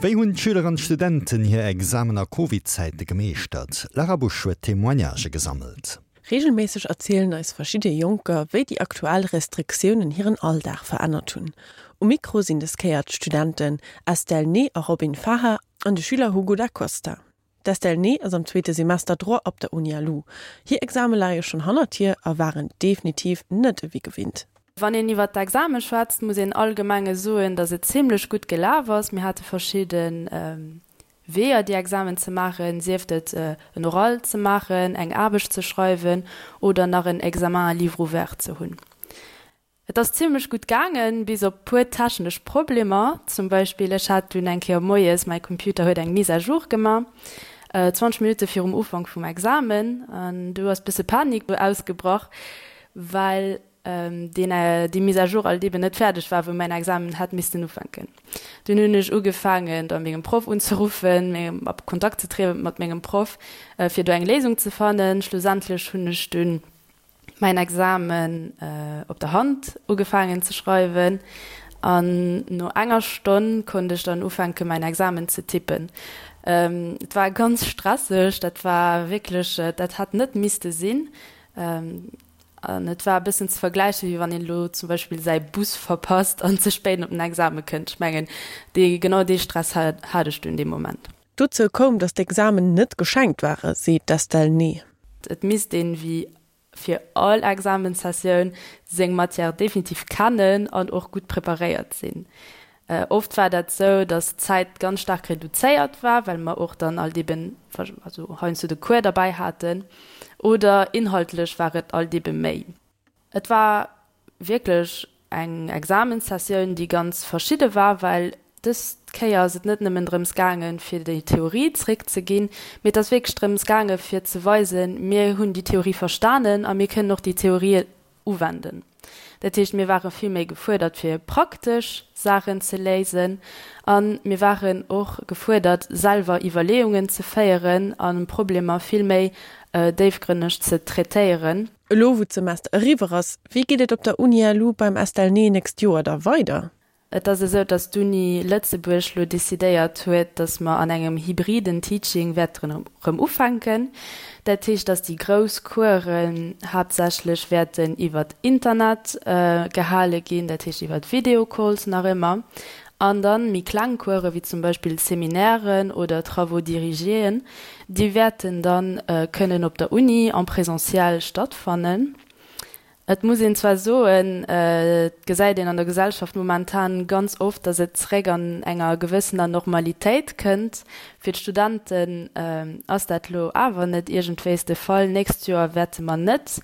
Wéi hunn d'Schüler an d'Studenten hir Examen a Covid-Zäite gemeeschtert? D'Lara Busch huet Témoignagë gesammelt. Reegelméisseg erzielen eis verschidde Jonker, wéi déi aktuell Restriktiounen hiren Alldag verännert hunn. Um Mikro sinn des Kéier d'Studenten Estelle Ney a Robin Faha an de Schüler Hugo Da Costa. D'Estelle Ney ass am zweete Semester Droit op der Uni-LU. Hir Exame leie schonn hannert hir a waren definitiv net ewéi gewinnt. Wann een iwwer d'Exame schwätzt, muss een allgemenge soen, datt et zimlech gutt gelaf ass. Mir hate verschidde Weeër, déi Examen ze maachen, sief et en Oral ze maachen, eng Aarbecht ze schreiwen oder nach en Examen à livre ouvert ze hunn. Et ass zimlech gutt gaangen, bis op puer technesch Problemer. Zum Beispill, ech hat dunn eng Kéier moies, mäi Computer huet eng Mise à jour gemaach, 20 Minutte virum Ufank vum Examen, an du ass bësse Panik ausgebrach, well deen, déi Mise à jour alt eben net fäerdeg war, wou mäin Examen hätt missten ufänken. Dunn hunn ech ugefaangen, da mengem Proff unzeruffen, a Kontakt ze trieden mat mengem Proff, fir do eng Léisung ze fannen. Schlussendlech hunn ech dunn mäin Examen op der Hand ugefaangen ze schreiwen an no enger Stonn konnt ech dann ufänke mäin Examen ze tippen. Et war ganz stresseg, dat war wierklech, dat hätt net misste sinn an et war e bëssen ze vergläichen, wéi wann een elo zum Beispill säi Bus verpasst an ze spéit op den Exame kënnt. Ech mengen, dee genau dee Stress hat ech dunn dee Moment. Dozou koum, datt d'Examen net geschenkt ware, seet d'Estelle Ney. Et misst een, wéi fir all Examenssessioun, seng Matière definitiv kennen an och gutt preparéiert sinn. Oft war dat sou, datt d'Zäit ganz staark reduzéiert war, well mer och dann alt eben, also heiansdo de Cours derbäi haten, oder inhaltlech war et alt ebe méi. Et war wierklech eng Examenssessioun, déi ganz verschidde war, well dës Kéier ass et net nëmmen drëms gaangen, fir déi Theorie zréckzeginn, mee et ass wierklech drëms gaangen, fir ze weisen, mir hunn déi Theorie verstanen a mir kënnen och déi Theorie uwenden. Dat heescht, mir ware vill méi gefuerdert, fir praktesch Saachen ze léisen a mir waren och gefuerdert, selwer Iwwerleeungen ze féieren a Problemer vill méi déifgrënneg ze traitéieren. Elo wou d'Semester eriwwer ass, wéi geet et op der Uni LU beim Estelle Ney nächst Joer da weider? Et ass esou, datt d'Uni Lëtzebuerg lo decidéiert huet, datt mer an engem hybriden Teaching wäerten erëm ufänken. Dat heescht, datt déi grouss Coursen haaptsächlech wäerten iwwert Internet gehale ginn, dat heescht iwwert Videocalls nach ëmmer, an dann méi kleng Coursen, wéi zum Beispill Seminairen oder Travaux dirigéen, Déi wäerten dann kënnen op der Uni en présentiel stattfannen. Et muss een zwar soen, et gesäit een an der Gesellschaft momentan ganz oft, datt et zeréck an enger gewëssener Normalitéit kënnt. Fir d'Studenten ass dat elo awer net iergendwéis de Fall. Nächst Joer wäerte mer net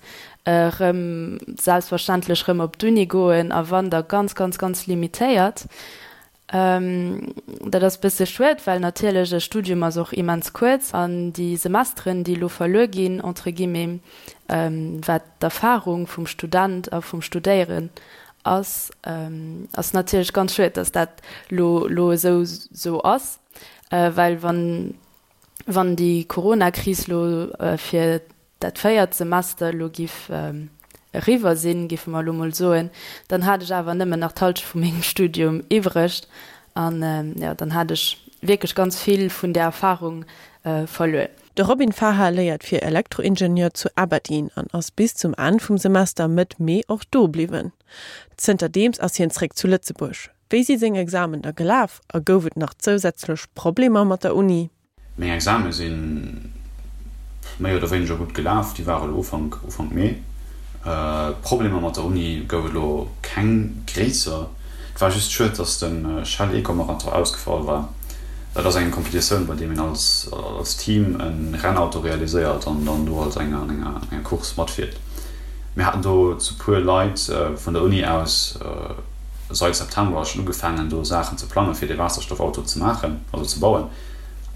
erëm selbstverständlech erëm op d'Uni goen a wann, da ganz, ganz, ganz limitéiert. Dat ass bësse schued, well natierlech e Studium ass och immens kuerz an déi Semesteren, déi elo verluer ginn, entre guillemets, wat d'Erfahrung vum Student a vum Studéieren ass, ass natierlech ganz schued, datt dat elo elo esou esou ass, well wann wann déi Corona-Kris elo fir dat véiert Semester elo giff eriwwer sinn, giffe mer elo mol soen, dann hat ech awer nëmmen nach d'Halschent vu mengem Studium iwwreg an jo, dann hat ech wierklech ganz vill vun där Erfahrung verluer. De Robin Faha léiert fir Elektroingenieur zu Aberdeen an ass bis zum Enn vum Semester Mëtt Mee och do bliwwen. Zënterdeems ass hien zréck zu Lëtzebuerg. Wéi si seng Examen da gelaf a gouf et nach zousätzlech Problemer mat der Uni? Meng Exame si méi oder wéineger gutt gelaf, déi ware elo Ufank Ufank Mee. Problemer mat der Uni gouf et elo keng gréisser. Et war just schued, dass de Shell Eco Marathon ausgefall war. Dat ass eng Competitioun, bei deem een als als Team e Rennauto realiséiert an dann do als enger an enger enger Course matfiert. Mir haten do zu puer Leit vun der Uni aus seit September schonn ugefaangen do Saachen ze plangen, fir dee Waasserstoffauto ze maachen, also ze bauen.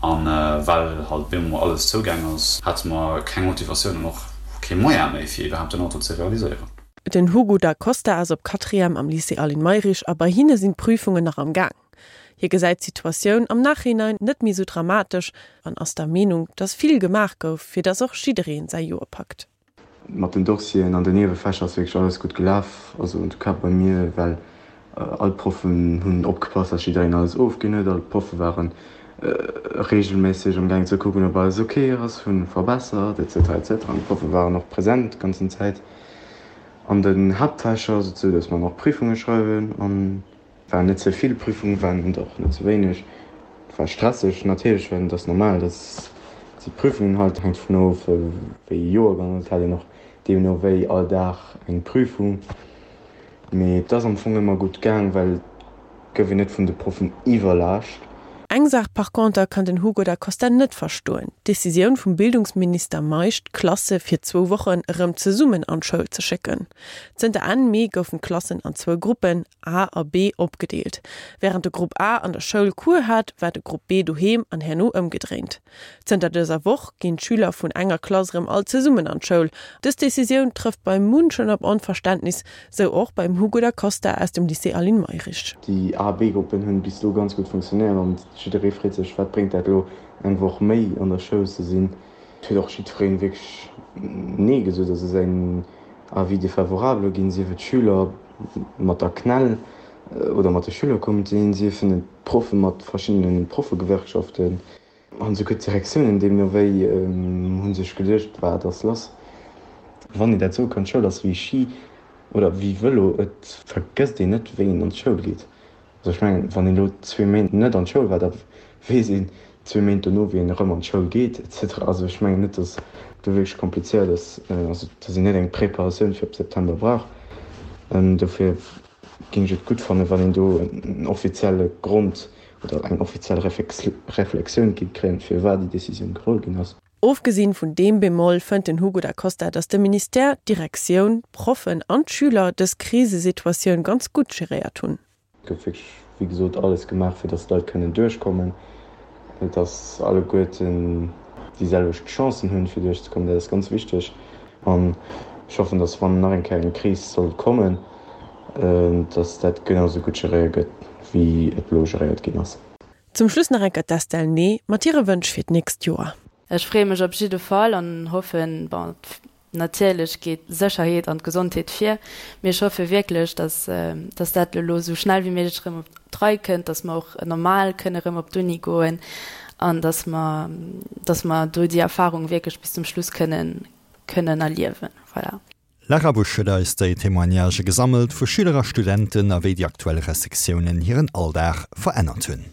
An well halt bemol alles zougaang ass, hate mer keng Motivatioun an och kee Moyen méi fir iwwerhaapt den Auto ze realiséieren. Den Hugo Da Costa ass op Quatrième am Lycée Aline Mayrisch a bei hinne sinn d'Prüfungen nach am Gaang. Hie gesäit d'Situatioun am Nachhinein net méi sou dramatesch an ass der Meenung, dass vill gemaach gouf, fir dass och jiddereen säi Joer packt. Mat den Dossieren an den Niewefächer ass wierklech alles gutt gelaf, also en tout cas bei mir, well. All d'Proffen hunn opgepasst, dass jiddereen alles ofginn huet. All d'Proffe ware reegelméisseg am gaang ze kucken, ob alles ok ass, hu verbessert, etc. Etc. An d'Proffe waren och present d'ganzen Zäit an den Haaptfächer, sou dass mer nach Prüfunge schreiwen an waren net ze vill Prüfungen, waren et och net ze wéineg. Et war stresseg natierlech, well et ass normal, dass si Prüfungen halt, hänkt dovun of wéi ee Joergang, et hat een och deemno wéi all Dag eng Prüfung. Mee et ass am Fong ëmmer gutt gaang, well et gouf een net vun de Proffen iwwerlaascht. Eng Saach par conter kann den Hugo da Costa net verstoen, d'Decisioun vum Bildungsminister Meisch, d'Klasse fir zwou Wochen erëm zesummen an d'Schoul ze schécken. Zënter Enn Mee goufen d'Klassen an zwou Gruppen, A a B, opgedeelt. Wärend de Grupp A an der Schoul Cours hat, war de Grupp B doheem an herno ëmgedréint. Zënter dëser Woch ginn d'Schüler vun enger Klass erëm all zesummen an d'Schoul. Dës Decisioun trëfft bei munchen op Onverständnis, sou och beim Hugo da Costa aus dem Lycée Aline Mayrisch. Déi A B-Gruppen hunn bis elo ganz gutt funktionéiert an jidderee freet sech, wat bréngt dat elo eng Woch méi an der Schoul ze sinn. Et huet och jiddweree wierklech Nee gesot, also säin Avis défavorable ginn, sief et d'Schüler mat der CNEL oder mat de Schülercomitéen, siefen et d'Proffe mat verschiddene Proffegewerkschaften. An esouguer d'Direktiounen deemno wéi hu sech geduecht, wat ass lass? Wann een dat soe kann, d'Schoul ass wéi Ski oder wéi Vëlo, et vergësst een net, wéi een an d'Schoul geet. Also ech mengen, wann een elo zwee Méint net an d'Schoul war, da weess een zwee Méint dono, wéi een erëm an d'Schoul geet et cetera. Also ech mengen net, datt do wierklech komplizéiert ass, also datt een net eng Preparatioun fir op September brauch. Dofir géing ech et gutt fannen, wann een do en offizielle Grond oder eng offiziell Reflexioun géing kréien, firwat déi Decisioun geholl ginn ass. Ofgesinn vun deem Bémol fënnt den Hugo Da Costa, datt de Ministère, d'Direktioun, d'Proffen an d'Schüler dës Krisesituatioun ganz gutt geréiert hunn. Et gouf wierklech, wéi gesot, alles gemaach, fir datt d'Leit kënnen duerchkommen, datt alleguerten déi selwecht Chancen hunn, fir duerchzekommen. Dat ass ganz wichteg. An ech hoffen, datt, wann nach eng Kéier eng Kris sollt kommen, datt dat genau esou gutt geréiert gëtt, wéi et elo geréiert ginn ass. Zum Schluss nach eng Kéier d'Estelle Ney mat hire Wënsch fir d'nächst Joer. Ech freeë mech op jidde Fall an hoffen, bon, natierlech geet d'Sécherheet an d'Gesondheet vir, mee ech hoffe wierklech, dass, dass dat elo esou schnell wéi méiglech erëm op d'Rei kënnt, dass mer och normal kënne erëm op d'Uni goen an dass mer, dass mer do déi Erfahrung wierklech bis zum Schluss kënnen, kënnen erliewen. Voilà. Lara Busch huet eis déi Témoignagë gesammelt vu Schüler a Studenten a wéi déi aktuell Restriktiounen hiren Alldag verännert hunn.